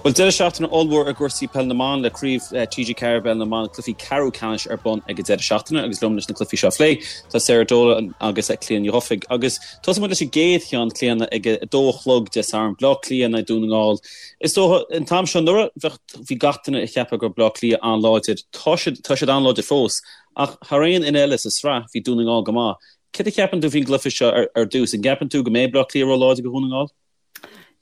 Bhuel, deireadh seachtaine ollmhór i gcúrsaí Peil na mBan le Craobh TG4 i bPeil na mBan, cluichí ceathrú ceannais ar bun ag an deireadh seachtaine agus liom leis na cluichí seo a phlé tá Sarah Dolan agus Clíona Ní Dhufaigh. Agus tosóidh muid leis an gcéad cheann, Clíona, ag a dó a chlog Dé Sathairn, Bleá Cliath in aghaidh Dún na nGall. Is dócha, an t-am seo anuraidh, bheadh, bhí gach duine ag ceapadh go raibh Bleá Cliath an-láidir. Tá siad, tá siad an-láidir fós. Ach thar aon fhoireann eile sa sraith, bhí Dún na nGall go maith. Céard a cheapann tú faoin gcluiche seo ar, ar dtús? An gceapann tú go mbeidh Bleá Cliath ró-láidir do Dhún na nGall?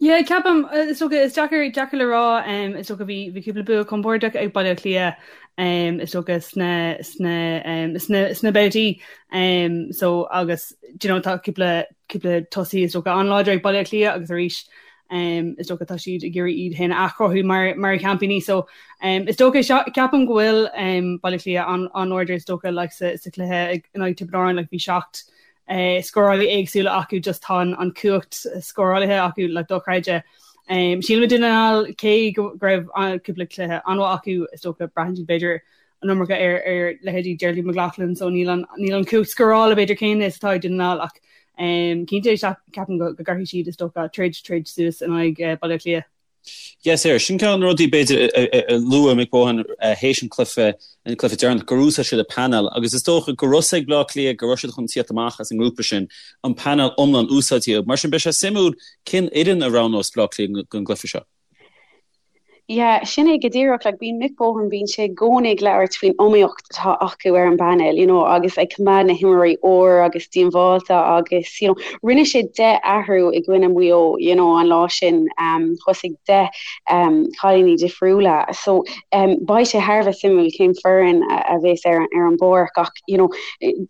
Yeah, ceapaim, is dócha, is deacair, deacair le rá, um, is dócha bhí, bhí cúpla bua compordach ag Baile Átha Cliath, um, is dócha sna, sna, um, sna, sna babhtaí, um, so agus, do you know, tá cúpla, cúpla tosaí is dócha an-láidir ag Baile Átha Cliath agus arís, um, is dócha tá siad ag iarraidh iad féin a athchruthú mar, mar sheaimpíní, so, um, is dócha, ceapaim go bhfuil, um, Baile Átha Cliath an, an-láidir is dócha, like, sa, sa chluiche ag, in aghaidh Tiobraid Árann, like, bhí 7, scórálaí éagsúla acu just tá an cumhacht scórálaithe acu like dochreidte. Sílim Dún na nGall cé go raibh cúpla cluiche an-mhaith acu is dócha braitheann siad b'fhéidir an iomarca ar ar leithéidí Geraldine McLaughlin so níl an níl an cumhacht scórála b'fhéidir céanna is atá ag Dún na nGall ach cinnte ceapaim go go gcaithfidh siad is dócha troid troid suas in aghaidh Baile Átha Cliath. Yes, Sarah, sin ceann de na rudaí b'fhéidir a luaigh Mick Bohan théis an cluiche, an cluiche deireanach, gur úsáid siad an painéal agus is dócha go raibh a fhios ag Bleá Cliath go raibh siad chun tíocht amach as an ngrúpa sin, an painéal iomlán úsáidte acu. Mar sin beidh sé suimiúil cén fhoireann a roghnós Bleá Cliath don gcluiche seo. Yeah, sin é go díreach, like bíonn Mick Bohan, bíonn sé i gcónaí ag labhairt faoin iomaíocht atá acu ar an bpainéal, you know, agus ag coimeád na himreoirí úr agus díombháilte agus, you know, rinne sé 10 athrú i gcoinne Mhaigh Eo, you know, an lá sin, um, thosaigh 10 um, cailíní difriúla. So, um, beidh sé thar a bheith suimiúil cén foireann a, a bheas ar, ar an bpáirc ach, you know,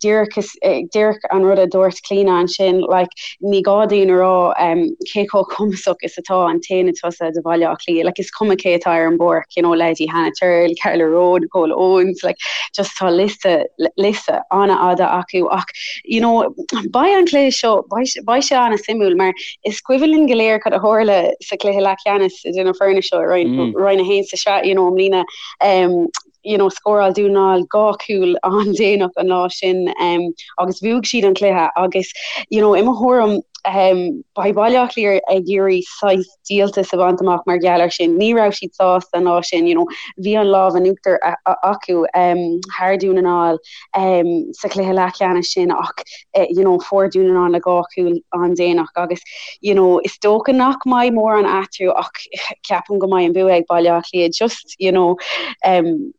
díreach is, díreach an rud a dúirt Clíona ansin, like, ní gá dúinn a rá um, cé chomh cumasach is atá an t-aonad tosaithe do Bhaile Átha Cliath, like, is cuma cé atá ar an bpáirc, you know, leithéidí Hannah Tyrrell, Carla Rowe, Nicole Owens, like, just tá liosta, liosta an-fhada acu ach, you know, beidh an cluiche seo, beidh, beidh sé an-suimiúil mar is cuimhin linn go léir cad a tharla sa chluiche leathcheannais idir na foirne seo i Roinn, mm. Roinn 1 sa sraith, you know, i mbliana, um, you know, scóráil Dún na nGall 2 chúl an-déanach an lá sin um, agus bhuaigh siad an cluiche agus you know, i mo thuairim um, beidh Baile Átha Cliath ag iarraidh saghas díoltas a bhaint amach mar gheall air sin. Ní raibh siad sásta an lá sin, you know, bhí an lámh in uachtar acu um, thar Dún na nGall um, sa chluiche leathcheannais sin ach uh, you know, fuair Dún na nGall na 2 chúl an-déanach agus you know, is dócha nach mbeidh mórán eatarthu ach ceapaim go mbeidh an bua ag Baile Átha Cliath just you know, um,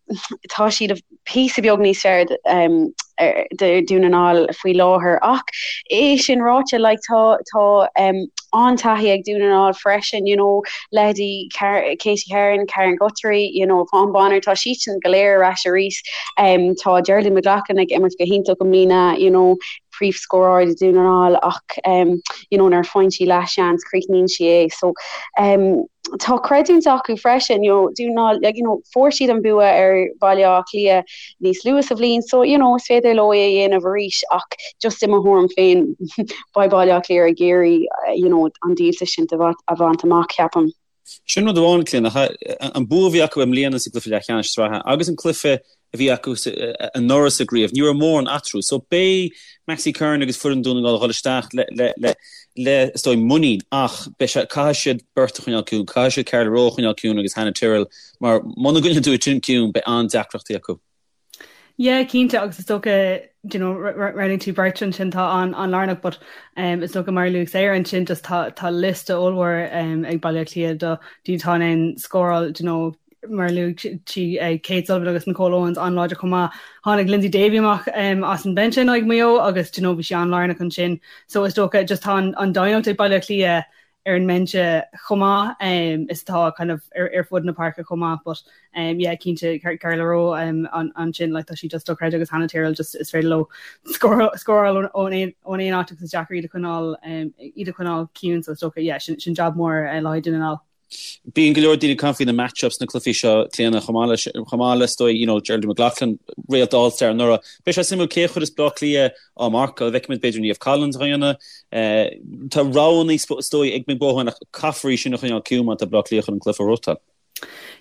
tá siad píosa beag níos fearr um, do Dún na nGall faoi láthair ach é sin ráite like, tá, tá um, an-taithí ag Dún na nGall freisin you know, leithéidí Katie Herron, Karen Guthrie, you know, Yvonne Bonner, tá siadsan go léir ar ais arís. Um, tá Geraldine McLaughlin ag imirt go hiontach i mbliana, you know, príomhscórálaí do Dún na nGall ach um, you know, nuair a faigheann sí leathsheans críochnaíonn sí é. So um, tá creidiúint acu freisin, you know, Dún na nGall, like, you know, fuair siad an bua ar Bhaile Átha Cliath níos luaithe sa bhliain, so you know, is féidir leo é a dhéanamh arís ach just i mo thuairim féin beidh Baile Átha Cliath ag iarraidh you know, an díoltas sin a bhaint amach, ceapaim. Sin rud amháin, Clíona, an bua a bhí acu i mbliana sa gcluiche leathcheannais sraithe agus an cluiche a bhí acu anuraidh sa gcraobh, ní raibh mórán eatarthu. So beidh Maxi Curran agus foireann Dún na nGall ag dul isteach le, le, le, le, is dóigh, muinín ach beidh sé, caithfidh siad beirt a choinneáil ciúin, caithfidh siad Carla Rowe a choinneáil ciúin agus Hannah Tyrrell mar muna gcoinníonn tú iad sin ciúin beidh an-deacrachtaí acu. Yeah, cinnte, agus is dócha, do you know, roghnaigh tú beirt ansin atá an-lárnach, but um, is dócha mar a luaigh Sarah ansin just tá, tá liosta ollmhór um, ag Baile Átha Cliath do daoine atá in ann scóráil, do you know, mar a luaigh sí uh, Kate Sullivan agus Nicole Owens an-láidir chomh maith. Tháinig Lyndsey Davey amach um, as an bench in aghaidh Maigh Eo agus do you know, bhí sí an-lárnach ansin. So is dócha just tá an, an doimhneacht ag Baile Átha Cliath ar an mbinse chomh maith is atá kind of ar fud na páirce chomh maith but yeah cinnte Carla Rowe ansin like tá sí just dochreidte agus Hannah Tyrrell just is féidir leo scóráil ón aon áit agus is deacair iad a choinneáil iad a choinneáil ciúin so is dócha yeah sin sin jab mór le haghaidh Dún na nGall. Bíonn go leor daoine ag caint faoi na match-ups sna cluichí seo, Clíona, chomh maith leis, chomh maith le, is dóigh, you know, Geraldine McLaughlin, réalt All-Star anuraidh. Beidh sé suimiúil cé a chuirfeas Bleá Cliath á marcáil. Feicfimid b'fhéidir Niamh Collins á dhéanamh. Tá roghanna, is dóigh, ag Mick Bohan ach caithfear í sin a choinneáil ciúin má tá Bleá Cliath chun an cluiche a ghnóthachtáil.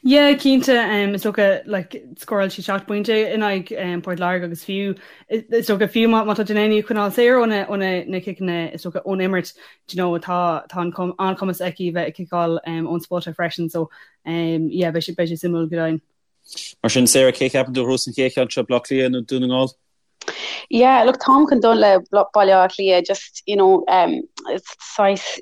Yeah, cinnte, is dócha like scóráil sí 7 bpointe in aghaidh Port Láirge agus fiú is dócha fiú má tá Delaney ag coinneáil saor ó na ó na na ciceanna is dócha ón imirt do you know tá tá an an-chumas aici bheith ag ciceáil ón spota freisin so yeah beidh sé beidh sé suimiúil go deimhin. Mar sin Sarah cé cheapann tú a ghnóthós an chéad cheann seo Baile Átha Cliath nó Dún na nGall? Yeah, look, táim chun dul le Baile Átha Cliath, just, you know, um, saghas,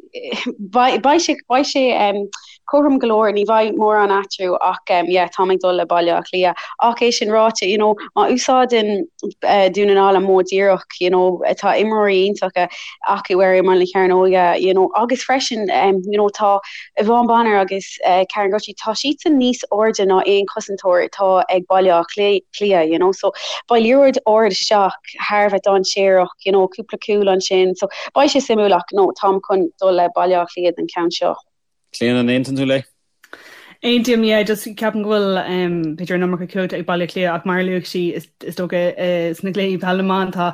beidh sé, beidh sé um, cothrom go leor, ní bheidh mórán eatarthu ach um, yeah, táim ag dul le Baile Átha Cliath. Ach é sin ráite, you know, má úsáideann uh, Dún na nGall an modh díreach, you know, tá imreoirí iontacha acu ar imeall na cearnóige, you know, agus freisin, um, you know, tá Yvonne Bonner agus Karen Guthrie, tá siadsan níos airde ná aon chosantóir atá ag Baile Átha Cliath, you know, so beidh liathróid ard isteach thar a bheith dainséarach, you know, cúpla cúl ansin, so beidh sé suimiúil ach no, táim chun dul le Baile Átha Cliath don cheann seo. Clíona, an aontaíonn tú léi? Aontaím, yeah, just ceapaim go bhfuil b'fhéidir an iomarca cumhachta ag Baile Átha Cliath ach mar a luaigh sí is dócha sna cluichí peil na mban tá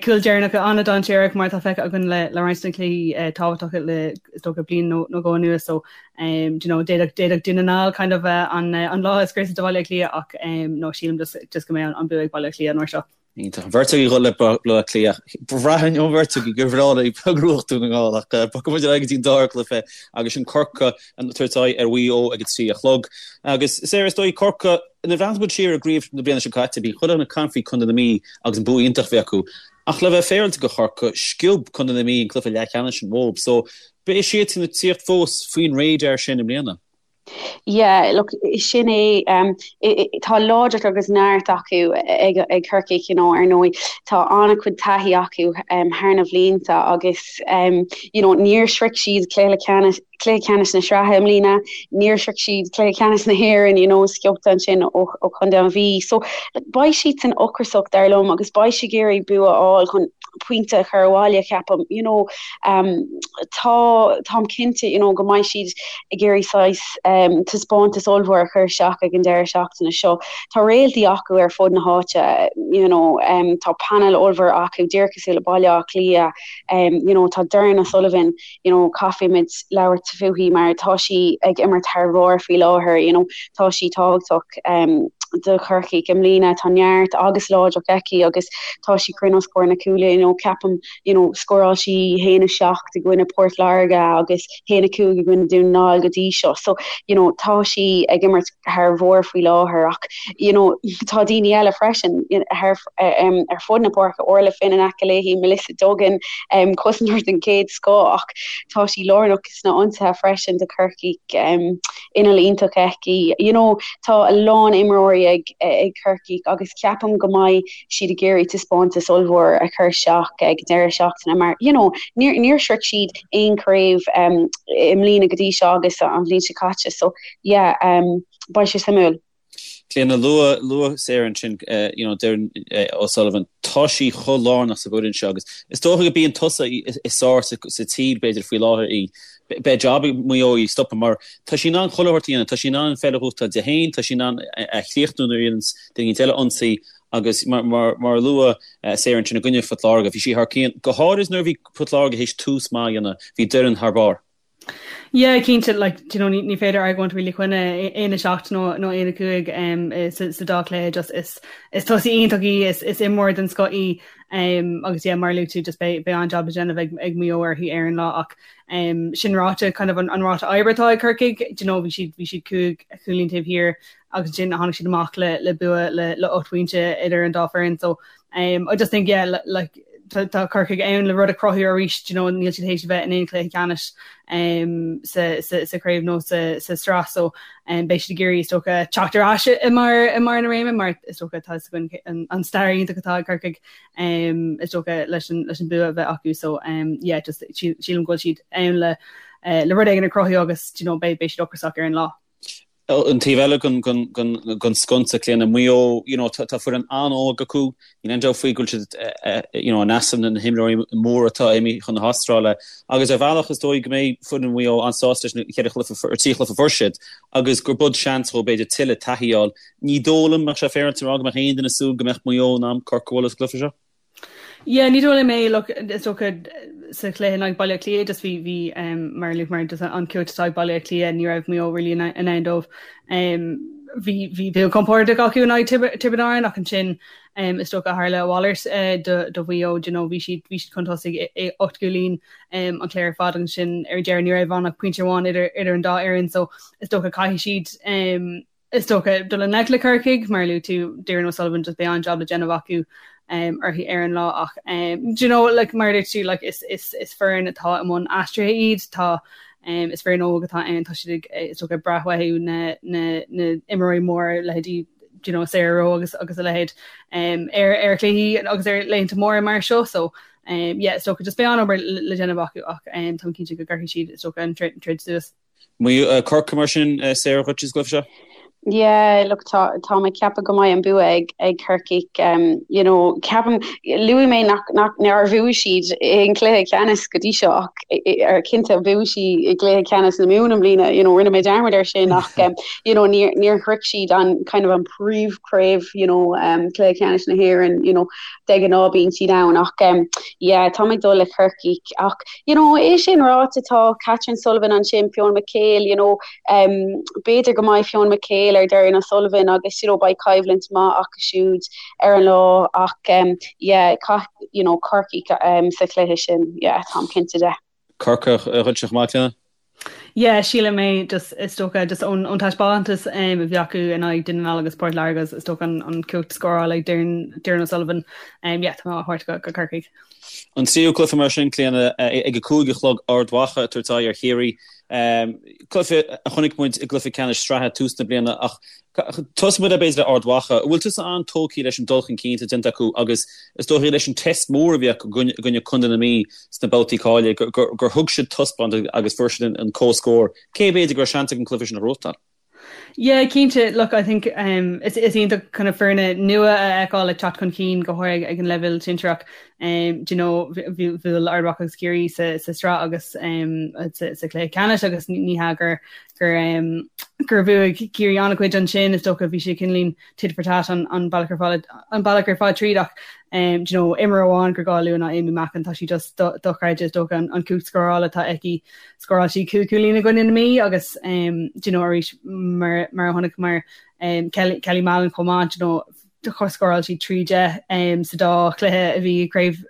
cúil deireanacha an-dainséarach mar atá feicthe againn le roinnt de na cluichí tábhachtacha le is dócha bliain nó dhó anuas so do you know d'fhéadfadh d'fhéadfadh Dún na nGall kind of an an lá a scriosadh do Bhaile Átha Cliath ach no sílim just just go mbeidh an bua ag Baile Átha Cliath an uair seo. Iontach. An bheirt agaibh ag dul le Baile Átha Cliath. Bhraithfinn ón bheirt agaibh gur bhreá libh go ngnóthódh Dún na nGall ach bogfaidh muid ar aghaidh go dtí an dara cluiche agus sin Corcaigh ag tabhairt aghaidh ar Mhaigh Eo ag a 3 a chlog. Agus Sarah is dóigh Corcaigh nuair a bhreathnaíonn muid siar ar an gcraobh na bliana seo caite bhí chuile dhuine ag caint faoi Contae na Mí agus an bua iontach a bhí acu. Ach le bheith féaráilte do Chorcaigh, sciob Contae na Mí an cluiche leathcheannais sin uathu. So beidh siadsan ag tíocht fós faoin radar sin i mbliana. Yeah, look, sin é, tá láidreacht agus neart acu ag ag Corcaigh, you know, ar ndóigh tá an-chuid taithí acu thar na bhlianta agus you know, níor shroich siad cluiche ceannais cluiche ceannais na sraithe i mbliana, níor shroich siad cluiche ceannais na hÉireann, you know, sciobtha ansin ó ó Chontae an Mhí. So like, beidh siadsan ocrasach dar liom agus beidh siad ag iarraidh bua a fháil chun pointe a chur abhaile, ceapaim, you know. Tá, táim cinnte, you know, go mbeidh siad ag iarraidh saghas taispeántas ollmhór a chur isteach ag an deireadh seachtaine seo. Tá réaltaí acu ar fud na háite, you know, tá painéal ollmhór acu, díreach cosúil le Baile Átha Cliath, you know, tá Doireann O'Sullivan, you know, caithfimid labhairt fúithi mar tá sí ag imirt thar bharr faoi láthair, you know, tá sí tábhachtach do Chorcaigh i mbliana, tá neart agus láidreacht aici agus tá sí cruinn os comhair na cúile, you know, ceapaim you know, scóráil sí 1-7 i gcoinne Port Láirge agus 1-5 i gcoinne Dún na nGall go dtí seo. So, you know, tá sí ag imirt thar bharr faoi láthair ach, you know, tá daoine eile freisin thar, um, ar fud na páirce, Orla Finn in aice léi, Melissa Duggan, um, cosantóir den chéad scoth ach tá sí lárnach sna ionsaithe freisin do Chorcaigh, um, inneall iontach aici. You know, tá a lán imreoirí ag, ag Corcaigh agus ceapaim go mbeidh siad ag iarraidh taispeántas ollmhór a chur isteach ag deireadh seachtaine mar you know níor níor shroich siad aon chraobh um, i mbliana go dtí seo agus an bhliain seo caite so yeah um, beidh sé suimiúil. Clíona, luaigh luaigh Sarah ansin uh, you know, Doireann uh, O'Sullivan, tá sí chomh lárnach sa bhfoireann seo agus is dócha go bíonn tusa is sár sa, sa tír b'fhéidir faoi láthair í. Beidh job ag Maigh Eo í a stopadh mar tá sí in ann chuile shórt a dhéanamh, tá sí in ann an pheil a ghnóthachtáil di féin, tá sí in ann a chríochnú nuair a dhéananns duine eile ionsaí Agus mar a luaigh Sarah ansin i gcoinne Phort Láirge, bhí sí thar cionn, go háirid nuair a bhí Port Láirge théis tús maith a dhéanamh, bhí Doireann thar barr. Yeah, cinnte, like, do you know, ní, ní féidir argóint really coinne 1-7 nó, nó 1-5 um, sa, sa dá chluiche, just is, is tosaí iontach í, is, is imreoir den scoth í, um, agus yeah, mar a luaigh tú, just beidh, beidh an-jab le déanamh ag, ag Maigh Eo uirthi ar an lá ach um, sin ráite, kind of an, an ráta oibre atá ag Corcaigh, do you know, bhí siad, bhí siad 5 chúilín taobh thiar agus ansin tháinig siad amach le le bua le le 8 bpointe idir an dá foireann so um, I just think yeah like tá tá Corcaigh ann le rud a chruthú arís you know níl siad théis a bheith in aon chluiche ceannais um, sa, sa, sa chraobh nó sa, sa sraith so um, beidh siad ag iarraidh is dócha teacht ar ais i mbarr i mbarr na réime mar is dócha tá againn an, an stair iontach atá ag Corcaigh um, is dócha leis an, leis an bua a bheith acu so um, yeah just sílim go bhfuil siad ann le uh, le rud éigin a chruthú agus you know, beidh beidh siad ocrasach ar an lá. An taobh eile den sconsa, Clíona, Maigh Eo, you know, tá foireann an-óg acu, níl aon dabht faoi go bhfuil siad, you know, in easnamh na himreoirí móra atá imithe chun na hAstráile agus ar bhealach is dóigh go mbeidh foireann Mhaigh Eo an-sásta leis na ceithre chluiche, ar trí chluiche a fuair siad agus gur bud seans dhóibh b'fhéidir tuilleadh taithí a fháil. Ní dóigh liom, mbeadh sé féaráilte a rá go mbeadh aon duine ag súil go mbeadh Maigh Eo in ann Corcaigh a bhualadh sa gcluiche seo. Yeah, ní dóigh liom é, look, is dócha. sa chluiche in aghaidh Baile Átha Cliath just bhí bhí um, mar a luaigh just an chumhacht atá ag Baile Átha Cliath ní raibh Maigh Eo really in ann dóibh. Um, bhí bhí bua compordach acu in aghaidh Tiobraid Árann ach ansin um, is dócha tharla a mhalairt uh, do, do Mhaigh Eo you know, bhí siad bhí siad chun tosaigh i, i 8 gcúilín um, an chluiche ar fad ansin ar deireadh ní raibh ann ach pointe amháin idir idir an dá fhoireann so is dócha caithfidh siad um, Is dócha dul i ngleic le Corcaigh, mar a luaigh tú, Doireann O'Sullivan, just beidh an-jab le déanamh acu uirthi ar an lá ach do you know like mar a dúirt tú like is is is foireann atá i mbun aistrithe iad, tá is foireann óg atá ann, tá siad ag is dócha ag brath uathu na na na imreoirí móra leithéidí do you know Sarah Rowe agus agus a leithéid ar ar chluichí agus ar laethanta móra mar seo so yeah is dócha just beidh an-obair le déanamh acu ach táim cinnte go gcuirfidh siad is dócha an troid suas. Maigh Eo, Corcaigh mar sin, Sarah dhuit sa gcluiche seo? Yeah, look, tá, tá mé ag ceapadh go mbeidh an bua ag, ag Corcaigh. Um, you know, ceapaim, luaigh mé nach, nach, nár bhuaigh siad aon chluiche ceannais go dtí seo ach ar cinnte bhuaigh siad i gcluiche ceannais na Mumhan i mbliana, you know, rinne mé dearmad air sin ach, um, you know, níor, níor shroich siad an kind of an príomhchraobh, you know, um, cluiche ceannais na hÉireann, you know, de ghnáth bíonn siad ann ach, um, yeah, tá mé ag dul le Corcaigh ach, You know, é sin ráite, tá Catherine Sullivan ansin, Fiona McHale, you know, um, b'fhéidir go mbeidh Fiona McHale ar Doireann O'Sullivan agus, you know, beidh coimhlint maith acu siúd ar an lá ach, um, yeah, caith, you know, Corcaigh um, sa chluiche sin, yeah, táim cinnte de. Corcaigh dhuitse chomh maith, Clíona? Yeah, sílim é just is dócha just ón ón taispeántas um, a bhí acu in aghaidh Dún na nGall agus Port Láirge is dócha an, an cumhacht scórála ag Doireann, Doireann O'Sullivan. Um, yeah, tá mé á thabhairt go, go Corcaigh. An tríú cluiche mar sin, Clíona, ag a 5 a chlog Ard Mhacha ag tabhairt aghaidh ar Chiarraí. Cluiche a chonaic muid i gcluiche ceannais sraithe tús na bliana ach tosóidh muid b'fhéidir le Ard Mhacha. An bhfuil tusa an-tógtha leis an dul chun cinn atá déanta acu agus is dóichí leis an test mór a bhí acu i gcoinne Contae na Mí sna babhtaí cáilithe gur thug siad taispeántas agus fuair siad an comhscór. Cé b'fhéidir go raibh seans acu an cluiche sin a ghnóthachtáil? Yeah, cinnte. Look, I think um, is, is iontach kind of foirne nua a fheiceáil ag teacht chun cinn go háirithe ag an leibhéal sinsearach. Um, do you know, bhuail Ard Mhacha agus Ciarraí sa, sa sraith agus um, sa, sa chluiche ceannais agus ní hea gur, gur, um, gur bhuaigh Ciarraí an-chuid ansin is dócha bhí sé cineáilín tit for tat an, an bealach ar fad an bealach ar fad tríd ach um, do you know, imreoir amháin gur gá a lua ná Amy Mackin tá sí just do, dochreidte is dócha an, an cumhacht scórála atá aici Scóráil sí 5 chúilín i gcoinne na Mí agus do you know arís mar mar a chonaiceamar Kelly Kelly Mallon chomh maith do you know scóráil sí 3 10 sa dá chluiche a bhí i gcraobh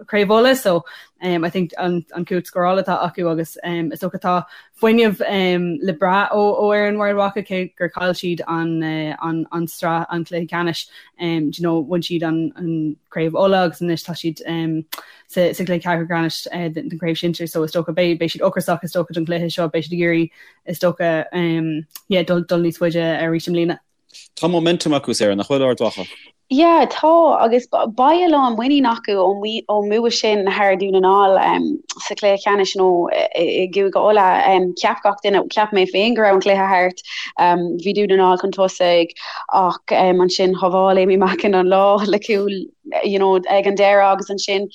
Craobh Uladh so um, I think an, an cumhacht scórála atá acu agus um, is dócha tá fuinneamh um, le brath ó ó fhoireann Ard Mhacha cé gur chaill siad an, uh, an, an sraith an cluiche ceannais um, do you know, bhain siad an, an Craobh Uladh agus anois tá siad um, sa gcluiche ceathrú ceannais den chraobh shinsir so is dócha beidh beidh siad ocrasach is dócha don chluiche seo beidh siad ag iarraidh is dócha yeah dul dul níos faide arís i mbliana. Tá momentum acu Sarah, nach bhfuil Ard Mhacha? Yeah, tá agus beidh a lán muinín acu ón mbua sin thar Dún na nGall sa chluiche ceannais nó i gCúige Uladh. Cheap gach duine, cheap mé féin go raibh an cluiche thart. Bhí Dún na nGall chun tosaigh ach ansin shábháil Amy Mackin an lá le cúl you know, ag an deireadh agus ansin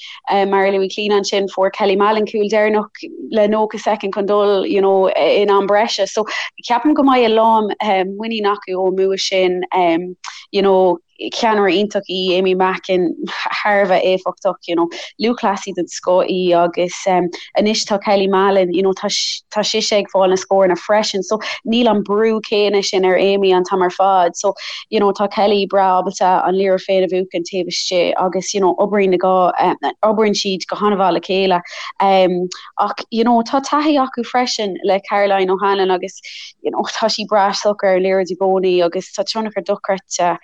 mar a luaigh Clíona ansin fuair Kelly Mallon cúl deireanach le 90 soicind chun dul you know, in am breise. So ceapaim go mbeidh a lán muinín acu ón mbua sin um, you know, ceannaire iontach í Amy Mackin thar a bheith éifeachtach, you know, lúthchleasaí den scoth í agus um, anois tá Kelly Mallon, you know, tá, tá sise ag fáil na scóranna freisin, so níl an brú céanna sin ar Amy an t-am ar fad. So you know tá Kelly breá ábalta an liathróid féin a bhuachan taobh istigh agus you know oibríonn na dhá oibríonn siad go han-mhaith le chéile um, ach you know tá taithí acu freisin le Caroline O'Hanlon agus you know tá sí breá socair ar an liathróid i gcónaí agus tá tionchar dochreidte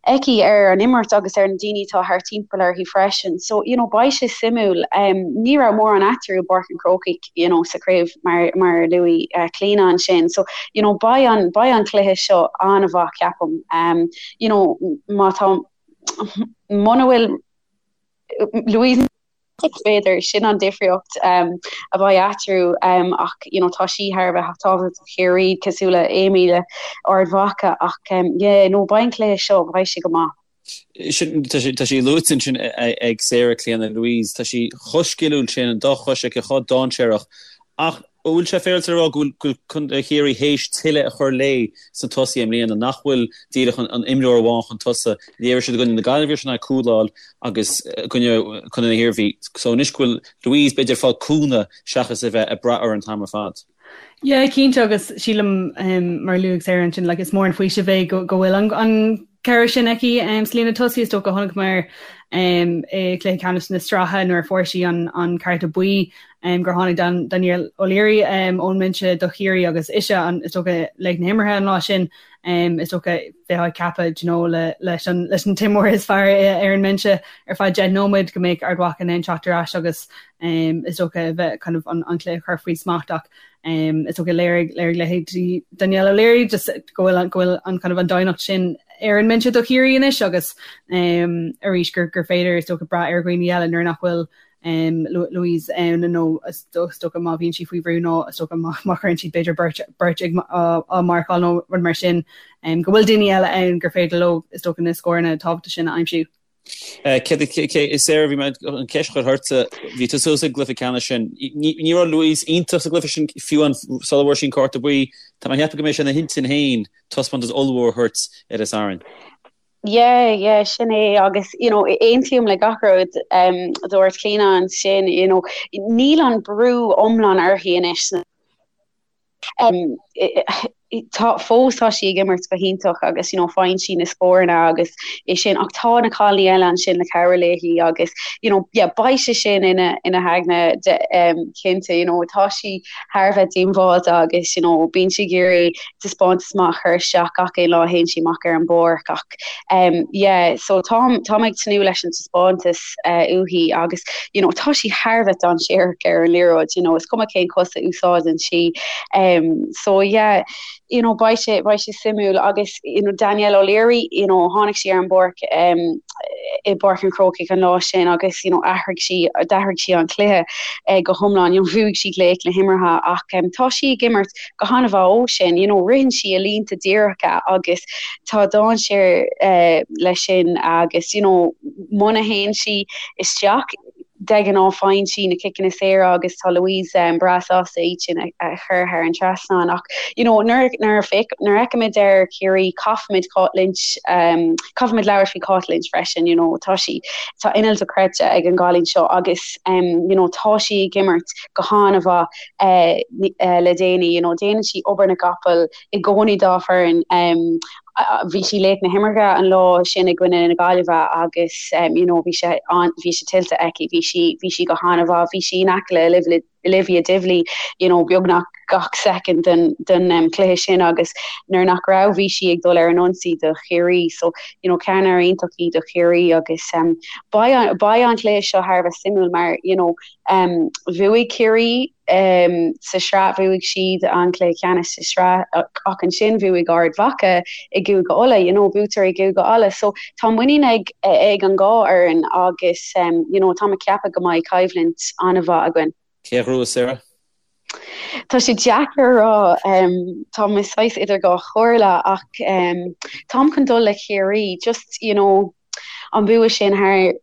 aici ar an imirt agus ar na daoine atá thart timpeall uirthi freisin. So, you know, beidh sé suimiúil. Um, ní raibh mórán eatarthu i bPáirc an Chrócaigh, you know, sa chraobh mar, mar a luaigh uh, Clíona ansin. So, you know, beidh an, beidh an cluiche seo an-mhaith ceapaim. Um, you know, má tá muna bhfuil Louise b'fhéidir sin an difríocht um, a bheidh eatarthu um, ach you know, tá sí thar a bheith tábhachtach do Chiarraí cosúil le Amy le Ard Mhacha ach um, yeah, no, beidh an cluiche seo beidh sé go maith. Sin, tá sé, tá sí luaite ansin ag Sarah Clíona Louise, tá sí chomh sciliúil sin, an dá chois aici chomh dainséarach ach. An bhfuil sé féaráilte a rá go bhfuil Contae Chiarraí théis tuilleadh a chur léi sna tosaithe i mbliana, nach bhfuil díreach an imreoir amháin chun tosaigh? Léirigh siad i gcoinne na Gaillimhe sin ag cúláil agus i gcoinne Contae na hIarmhí. So anois go bhfuil Louise b'fhéidir ag fáil cúnamh seachas a bheith ag brath uirthi an t-am ar fad. Yeah, cinnte agus sílim mar a luaigh Sarah ansin like is mór an faoiseamh é go bhfuil an cabhair sin aici sa líne tosaigh. Is dócha chonaiceamar i gcluiche ceannais na sraithe nuair a fuair sí an cárta buí gur tháinig Danielle O'Leary ón mbinse do Chiarraí agus ise an is dócha laoch na himeartha an lá sin. Is dócha bheifeá ag ceapadh you know leis an leis an t-imreoir is fearr ar an mbinse ar feadh 10 nóiméad go mbeadh Ard Mhacha in ann teacht ar ais agus is dócha a bheith kind of an cluiche a chur faoi smacht ach is dócha léirigh léirigh leithéidí Danielle O'Leary just go bhfuil go bhfuil an kind of an doimhneacht sin ar an mbinse do Chiarraí anois agus arís gur gur féidir is dócha brath ar dhaoine eile nuair nach bhfuil Louise ann nó is dócha má bhíonn sí faoi bhrú nó is dócha má chuireann siad b'fhéidir beirt beirt ag á marcáil nó rud mar sin go bhfuil daoine eile ann gur féidir leo is dócha na scóranna tábhachtacha sin a aimsiú. Céard Sarah bhí mé an cheist a chur ortsa, bhí tú suas ag an gcluiche ceannais sin. Ní raibh Louise iontach sa gcluiche sin fiú amháin sula bhfuair sí an cárta buí. Tá mé ag ceapadh go mbeidh sé ina hintinn féin taispeántas ollmhór a thabhairt ar an Satharn. Yeah, yeah, sin é agus you know, aontaím le gach rud um, a dúirt Clíona ansin, you know, níl an brú iomlán uirthi anois. Um, tá fós tá sí ag imirt go hiontach agus you know, faigheann sí na scóranna agus é sin ach tá na cailíní eile ansin le cabhrú léi agus you know, yeah, beidh sé sin ina ina haigne de, um, cinnte you know, tá sí thar a bheith díogbháilte agus you know, bíonn sí ag iarraidh taispeántas maith a chur isteach gach aon lá a théann sí amach ar an bpáirc ach um yeah so táim táim ag tnúth leis an taispeántas uh, uaithi agus you know tá sí thar a bheith dainséarach ar an liathróid you know is cuma cén cos a úsáideann sí um so yeah you know beidh sé beidh sé suimiúil agus you know Danielle O'Leary you know tháinig sí ar an bpáirc um i bPáirc an Chrócaigh an lá sin agus you know athraigh sí d'athraigh sí an cluiche uh, go hiomlán you know bhuaigh sí laoch na himeartha ach um, tá sí ag imirt go han-mhaith ó sin, you know, ritheann sí i línte díreacha agus tá dainséar eh, leis sin agus, you know, muna théann sí isteach, de ghnáth faigheann sí na ciceanna saora agus tá Louise um, breá sásta iad sin a, a chur thar an trasnán ach you know, nuair, nuair, a féach, nuair a fheicimid ar Chiarraí caithfimid Cáit Lynch um, caithfimid labhairt faoi Cáit Lynch freisin, you know, tá sí tá inneall dochreidte ag an gcailín seo agus um, you know, tá sí ag imirt go han-mhaith le déanaí. You know, déanann sí obair na gcapall i gcónaí dá foireann. Bhí sí laoch na himeartha an lá sin i gcoinne na Gaillimhe agus you know, bhí sé bhí sé tuillte aici, bhí sí bhí sí go han-mhaith, bhí sí in aice le Olivia Divilly, you know, beagnach gach soicind den den um, cluiche sin agus nuair nach raibh bhí sí ag dul ar an ionsaí do Chiarraí. So, you know, ceannaire iontach í do Chiarraí agus um, beidh beidh an cluiche seo thar a bheith suimiúil mar, you know, Bhuaigh Ciarraí sa sraith, bhuaigh siad an cluiche ceannais sa sraith ach ansin bhuaigh Ard Mhacha i gCúige Uladh, you know, buaiteoirí i gCúige Uladh. So tá muinín ag ag an dhá fhoireann agus you know, tá mé ag ceapadh go mbeidh coimhlint an-mhaith againn. Cé a ghnóthós, Sarah? Tá sé deacair a rá, tá mé saghas idir dhá chomhairle ach táim chun dul le Ciarraí, just you know, an bua sin thar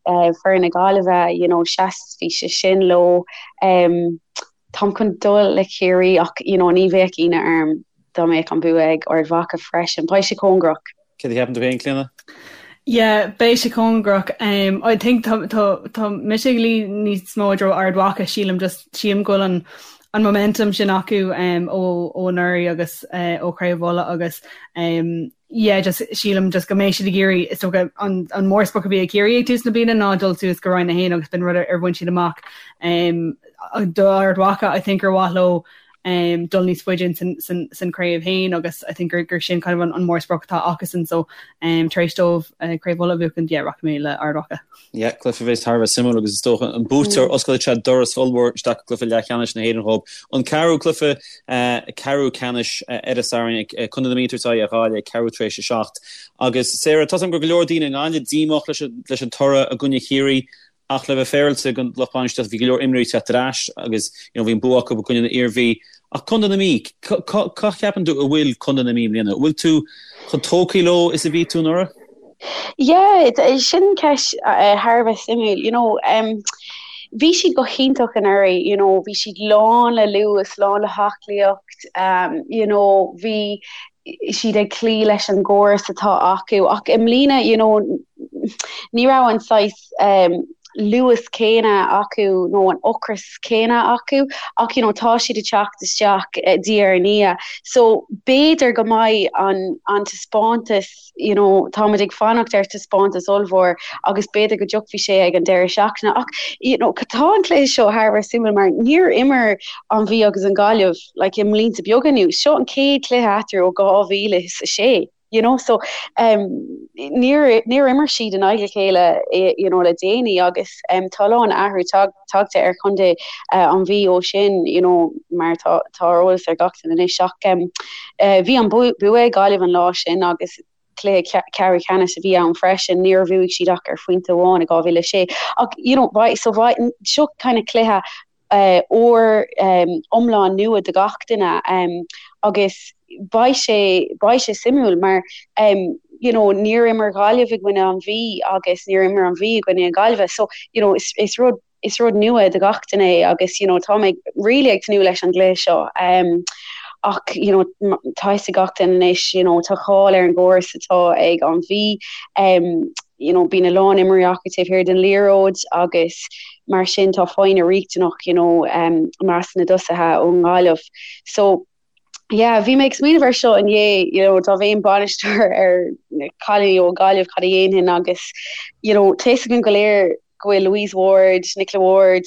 foireann na Gaillimhe, you know, sheas, bhí sé sin leo. Táim chun dul le Ciarraí ach, you know, ní bheadh ionadh orm dá mbeadh an bua ag Ard Mhacha freisin. Beidh sé cóngarach. Céard a cheapann tú féin, Clíona? Yeah, beidh sé cóngarach. Um, I think tá, tá, tá mise ag luí níos mó i dtreo Ard Mhacha, sílim, just sílim go bhfuil an, an momentum sin acu um, ó, ó anuraidh agus uh, ó Chraobh Uladh agus um, yeah just sílim just go mbeidh siad ag iarraidh is dócha an an mórsprioc a bhí ag Ciarraí ag tús na bliana ná dul suas go Roinn 1 agus b'in rud ar bhain siad amach um, do Ard Mhacha I think gur mhaith leo um, dul níos faide san, san, san craobh féin agus I think gur, gur sin kind of an, an mórsprioc atá acusan so um, tar éis dóibh uh, craobh Uladh a bhuachan yeah, rachaidh mé le Ard Mhacha. Yeah, cluiche a bheas thar a bheith suimiúil agus is dócha an buaiteoir osclóidh sé doras ollmhór isteach go cluiche leathcheannais na hÉireann dhóibh. An ceathrú cluiche, ceathrú ceannais ar an Satharn, Contae na Mí ag tabhairt aghaidh ar Ghaillimh ag ceathrú tar éis a 7. Agus Sarah, tá a fhios agam go raibh go leor daoine i nGaillimh díomách leis an toradh i gcoinne Chiarraí ach le bheith féaráilte don lucht bainistíochta bhí go leor imreoirí ag teacht ar ais agus you know bhí an bua acu i gcoinne na Iarmhí. Ach Contae na Mí, cá cheapann tú a bhfuil Contae na Mí i mbliana? An bhfuil tú chomh tógtha leo is a bhí tú anuraidh? Yeah, sin ceist thar a bheith suimiúil. You know, um, bhí siad go hiontach anuraidh, you know, bhí siad lán le luas, lán le haclaíocht, um, you know, bhí siad ag cloí leis an gcóras atá acu ach i mbliana, you know, ní raibh an saghas um, luas céanna acu nó an ocras céanna acu ach you know, tá siad ag teacht isteach eh, diaidh ar ndiaidh. So b'fhéidir go mbeidh an, an taispeántas you know, táimid ag fanacht ar taispeántas ollmhór agus b'fhéidir go dtiocfaidh sé ag an deireadh seachtaine ach you know, tá an cluiche seo thar a bheith suimiúil mar níor imir an Mhí agus an Ghaillimh like, i mblianta beaga anuas. Seo an chéad chluiche eatarthu ó 2006. You know, so um, níor, níor imir siad in aghaidh a chéile you know, le déanaí agus um, tá a lán athrú tag, tagtha ar chontae uh, an Mhí ó sin you know, mar tá, tá ar eolas ar gach duine anois ach um, uh, bhí an bua ag Gaillimh an lá sin agus cluiche ceathrú ceannais a bhí ann freisin, níor bhuaigh siad ach ar phointe amháin i 2006 ach you know, so seo kind of cluiche úr iomlán nua do gach duine agus beidh sé beidh sé suimiúil mar you know níor imir Gaillimh i gcoinne an Mhí agus níor imir an Mhí i gcoinne na Gaillimhe so you know is is rud is rud nua do gach duine é agus you know tá mé really ag tnúth leis an gcluiche seo ach you know tá fhios ag gach duine anois you know tá cáil ar an gcóras atá ag an Mhí you know bíonn a lán imreoirí acu taobh thiar den liathróid agus mar sin tá foighne riachtanach you know um, measc na dtosaithe ón nGaillimh. So yeah, bhí mé ag smaoineamh ar seo inné, you know, dá mbeinn bainisteoir ar na cailíní ó Gaillimh cad a dhéanfainn agus you know, tá fhios againn go léir go bhfuil Louise Ward, Nicola Ward,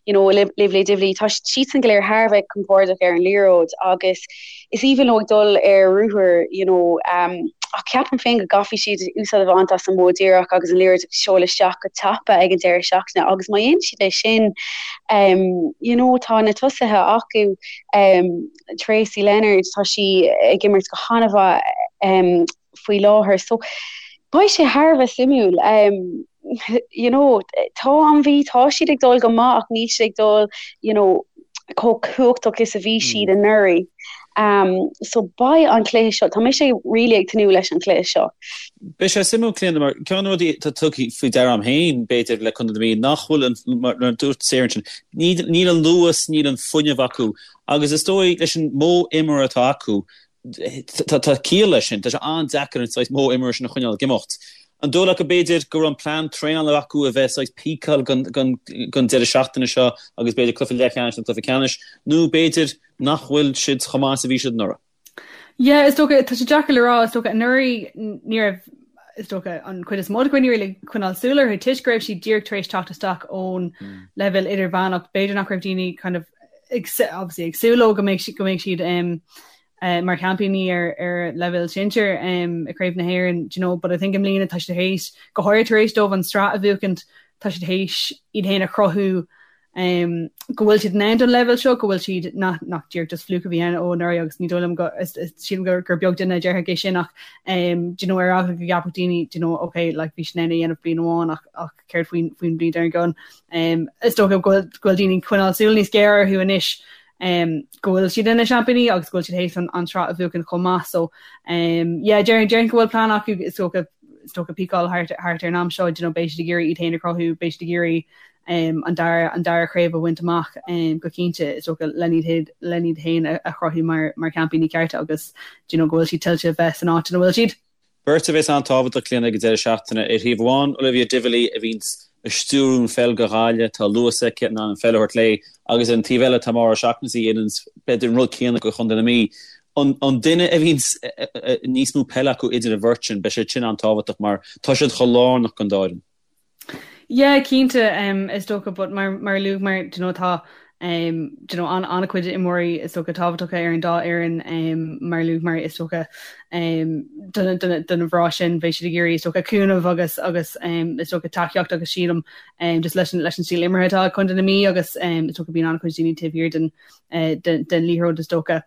you know, Olivia Divilly, tá siadsan go léir thar a bheith compordach ar an liathróid agus is aoibhinn leo ag dul ar ruathar, you know, um, ach ceapaim féin go gcaithfidh siad úsáid a bhaint as an modh díreach agus an liathróid a sheoladh isteach go tapa ag an deireadh seachtaine agus má dhéanann siad é sin, um, you know, tá na tosaithe acu, um, Tracey Leonard, tá sí ag imirt go han-mhaith um, faoi láthair. So beidh sé thar a bheith suimiúil. Um, you know, tá an Mhí, tá siad ag dul go maith ach níl siad ag dul, you know, chomh cumhachtach is a bhí siad mm. anuraidh. Um, so beidh an cluiche seo, tá mise really ag tnúth leis an cluiche seo. Beidh sé suimiúil Clíona mar ceann de na rudaí atá tugtha faoi deara agam féin b'fhéidir le Contae na Mí nach bhfuil an mar a dúirt Sarah ansin níl an luas, níl an fuinneamh acu agus is dóigh leis an modh imeartha atá acu Tá ciall leis sin. Tá sé an-deacair an saghas modh imeartha sin a choinneáil ag imeacht. An dóigh leat go b'fhéidir go raibh an plean traenála acu a bheith saghas píceáil don deireadh seachtaine seo agus b'fhéidir cluiche leathcheannais nó cluiche ceannais, nó b'fhéidir nach bhfuil siad chomh maith is a bhí siad anuraidh? Yeah, is dócha, tá sé deacair le rá, is dócha anuraidh ní raibh, is dócha, an chuid is mó de dhaoine really ag coinneáil súil orthu toisc go raibh siad díreach tar éis teacht isteach ón leibhéal idirmheánach, b'fhéidir nach raibh daoine kind of ag obviously ag súil leo go mbeidh go mbeidh siad um, uh, mar sheaimpíní ar ar leibhéal sinsir um, i Craobh na hÉireann, do you know, but I think i mbliana tá siad théis go háirithe tar éis dóibh an tsraith a bhuachaint, tá siad théis iad féin a chruthú um, go bhfuil siad in ann don leibhéal seo, go bhfuil siad nach nach díreach just fluke a bhí ann ó anuraidh agus ní dóigh liom go is, is, sílim gur, gur beag duine a déarfadh é sin ach um, do you know, ar eagla go gceapfadh daoine do you know, okay, like, bhí siad in ann é a dhéanamh bliain amháin ach, ach céard faoin faoin bhliain dár gcionn. Um, is dócha go bhfuil daoine ag coinneáil súil níos géire orthu anois um, go bhfuil siad ina seaimpíní agus go bhfuil siad théis an, an tsraith a bhuachan chomh maith. So um, yeah, déarfainn déarfainn go bhfuil plean acu is dócha is dócha píceáil thart, thart ar an am seo, you know, beidh siad ag iarraidh iad féin a chruthú, beidh siad ag iarraidh um, an dara an dara craobh a bhaint amach um, go cinnte is dócha len iad len iad féin a, a chruthú mar mar sheaimpíní cearta agus do you know, go bhfuil siad tuillte bheith san áit ina bhfuil siad. Beirt a bheas an-tábhachtach, Clíona, ag an deireadh seachtaine. Ar thaobh amháin, Olivia Divilly a bhíonns ag stiúrú an pheil do Ghaillimh, tá luas aici, in ann an pheil a thabhairt léi, agus ar an taobh eile tá Maura O'Shaughnessy a dhéananns b'fhéidir an rud céanna do Chontae na Mí. An duine a bhíonns níos mó peile acu idir an bheirt sin, beidh sé sin an-tábhachtach mar tá siad chomh lárnach don dá fhoireann. Yeah, cinnte, um, is dócha, but mar, mar a luaigh mar, do you know, tá, um, do you know, an, an-chuid imreoirí is dócha tábhachtacha ar an dá fhoireann, um, mar a luaigh mar is dócha, um, do na, do na, do na mná sin beidh siad ag iarraidh is dócha cúnamh agus, agus, um, is dócha tacaíocht agus sílim, um, just leis an, leis an stíl imeartha atá ag Contae na Mí agus, um, is dócha bíonn an-chuid daoine taobh thiar den, uh, den, den liathróid is dócha.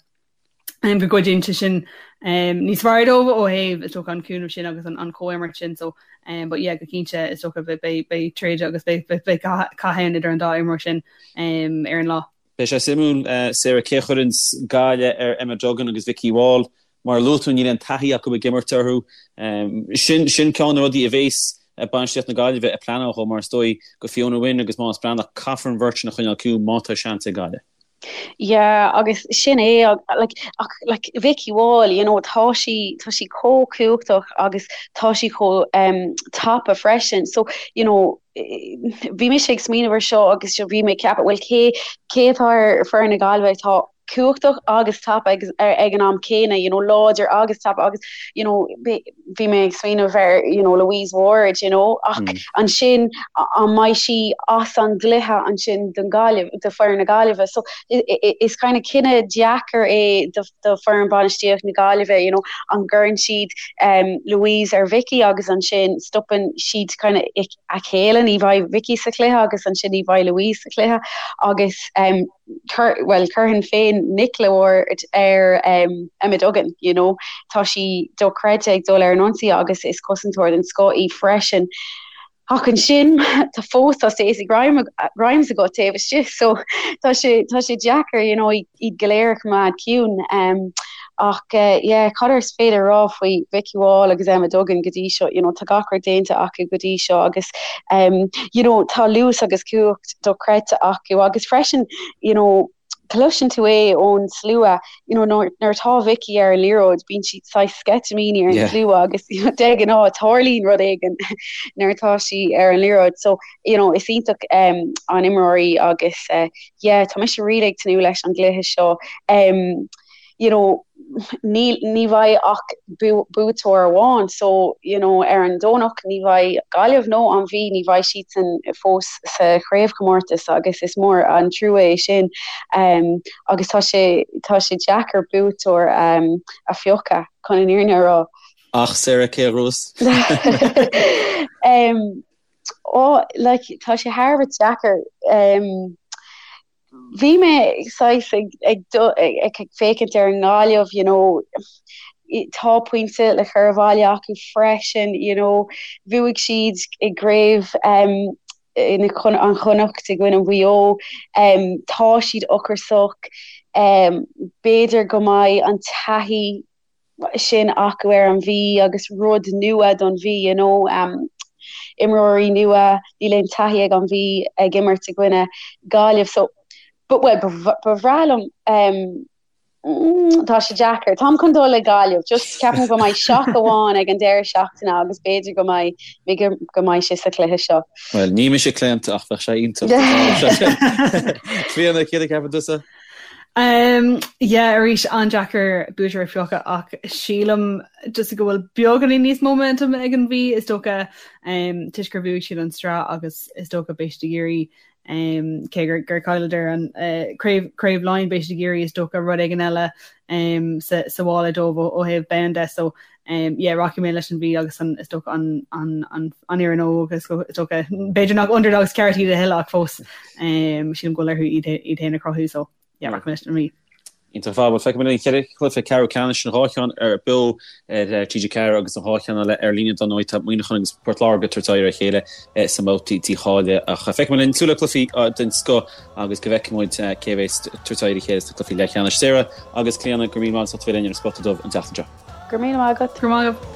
go gcuidíonn sé sin níos fearr dóibh ó thaobh is dócha an cúnamh sin agus an chomhimirt sin so but yeah go cinnte is dócha beidh beidh troid agus beidh beidh cath ann idir an dá imreoir sin ar an lá. Beidh sé suimiúil Sarah cé a chuireanns Gaillimh ar Emma Duggan agus Vikki Wall. Mar a luaigh tú níl aon taithí acu ag imirt orthu. Sin sin ceann de na rudaí a bhéas. bainistíocht na Gaillimhe ag pleanáil dhó mar is dóigh go Fiona Wynne agus Moss Breathnach caithfear an bheirt sin a choinneáil ciúin má tá seans ag Gaillimh. Yeah agus sin é like ach like Vikki Wall you know tá sí tá sí chomh cumhachtach agus tá sí chomh um, tapa freisin so you know bhí mise ag smaoineamh ar seo agus bhí mé ag ceapadh well cé cé atá ar foireann na Gaillimhe atá cumhachtach agus tapa ag, ag an am céanna you know láidir agus tapa agus you know bhí mé ag smaoineamh ar you know Louise Ward you know ach mm. ansin an mbeidh sí as an gcluiche ansin don Gaillimh do foireann na Gaillimhe so is kind of cinneadh deacair é do, do foireann bainistíocht na Gaillimhe you know an gcuireann siad um, Louise ar Vicky agus ansin stopann siad kind of a chéile ní bheidh Vicky sa chluiche agus ansin ní bheidh Louise sa chluiche agus um, bhuel, chuirfinn féin Nicola Ward ar Emma Duggan, you know. Tá sí dochreidte ag dul ar an ionsaí agus is cosantóir den scoth í freisin. Ach ansin, tá fós tá Stacey Grimes agat taobh istigh, so tá sé tá sé deacair, you know, iad go léir a choimeád ciúin. Um, ach uh, yeah, cad is féidir rá faoi Vikki Wall agus Emma Duggan go dtí seo, you know, tá gach rud déanta acu go dtí seo agus um, you know, tá luas agus cumhacht dochreidte acu agus freisin you know, cloiseann tú é ón slua you know, nuair atá Vicky ar an liathróid bíonn sí saghas sceitimíní ar an slua agus you know, de ghnáth tarlaíonn rud éigin nuair atá sí ar an liathróid so you know, is iontach um, an imreoir í agus uh, yeah, tá mise really ag tnúth leis an gcluiche seo um, you know, ní, ní bheidh ach buaiteoir amháin so, you know, ar an Domhnach ní bheidh Gaillimh nó an Mhí, ní bheidh siadsan fós sa chraobhchomórtas agus is mór an trua é sin um, agus tá sé, tá sé deacair buaiteoir um, a phiocadh chun an fhírinne a rá. Ach Sarah, cé a ghnóthós? um, oh, like, tá sé thar a bheith deacair. Um, Bhí mé saghas ag féachaint ar an nGaillimh, you know, tá pointe le cur abhaile acu freisin, you know, bhuaigh siad i gcraobh um, an Chonnacht i gcoinne Mhaigh Eo, um, tá siad ocrasach, um, b'fhéidir go mbeidh an taithí sin acu ar an Mhí agus rud nua don Mhí, you know, um, imreoirí nua, níl aon taithí ag an Mhí ag imirt i gcoinne Gaillimh so but well ba bhreá liom um, mm, tá sé deacair. Táim chun dul le Gaillimh, just ceapaim go mbeidh shock amháin ag an deireadh seachtaine agus b'fhéidir go mbeidh go mbeidh sé sa chluiche seo. Well, ní mise claonta ach bheadh sé iontach. Clíona, céard a cheapann tusa? Um, yeah, arís an-deacair buaiteoir a phiocadh ach sílim just go bhfuil beagáinín níos mó momentum ag an Mhí is dócha um, toisc gur bhuaigh siad an tsraith agus is dócha beidh siad ag iarraidh um, cé gur, gur chailleadar an uh, craobh, craobh Laighean beidh siad ag iarraidh is dócha rud éigin eile um, sa, sa mhála dóibh ó, ó thaobh bonn de so um, yeah, rachaidh mé leis an Mhí agus an, is dócha an, an, an, an fhoireann óg is dócha b'fhéidir nach underdogs ceart iad a thuilleadh ach fós um, sílim go bhfuil orthu iad iad féin a chruthú so yeah, rachaidh mé leis an Mhí. Iontach ar fad, bhuel feicfidh muid an cheithre chluiche ceathrú ceannais an dhá cheann ar beo ar TG4 agus an dhá cheann eile ar líne dar ndóigh tá Muineachán agus Port Láirge ag tabhairt aghaidh ar a chéile sa mbabhta dícháilithe ach feicfidh muid linn súil le cluichí den scoth agus go bhfeicfidh muid cé a bheas ag tabhairt aghaidh ar a chéile sna cluichí leathcheannais. Sarah agus Clíona, go raibh míle maith agat as ucht a bheith linn ar an Spota Dubh an tseachtain seo. Go raibh míle maith agat. Go raibh maith agat.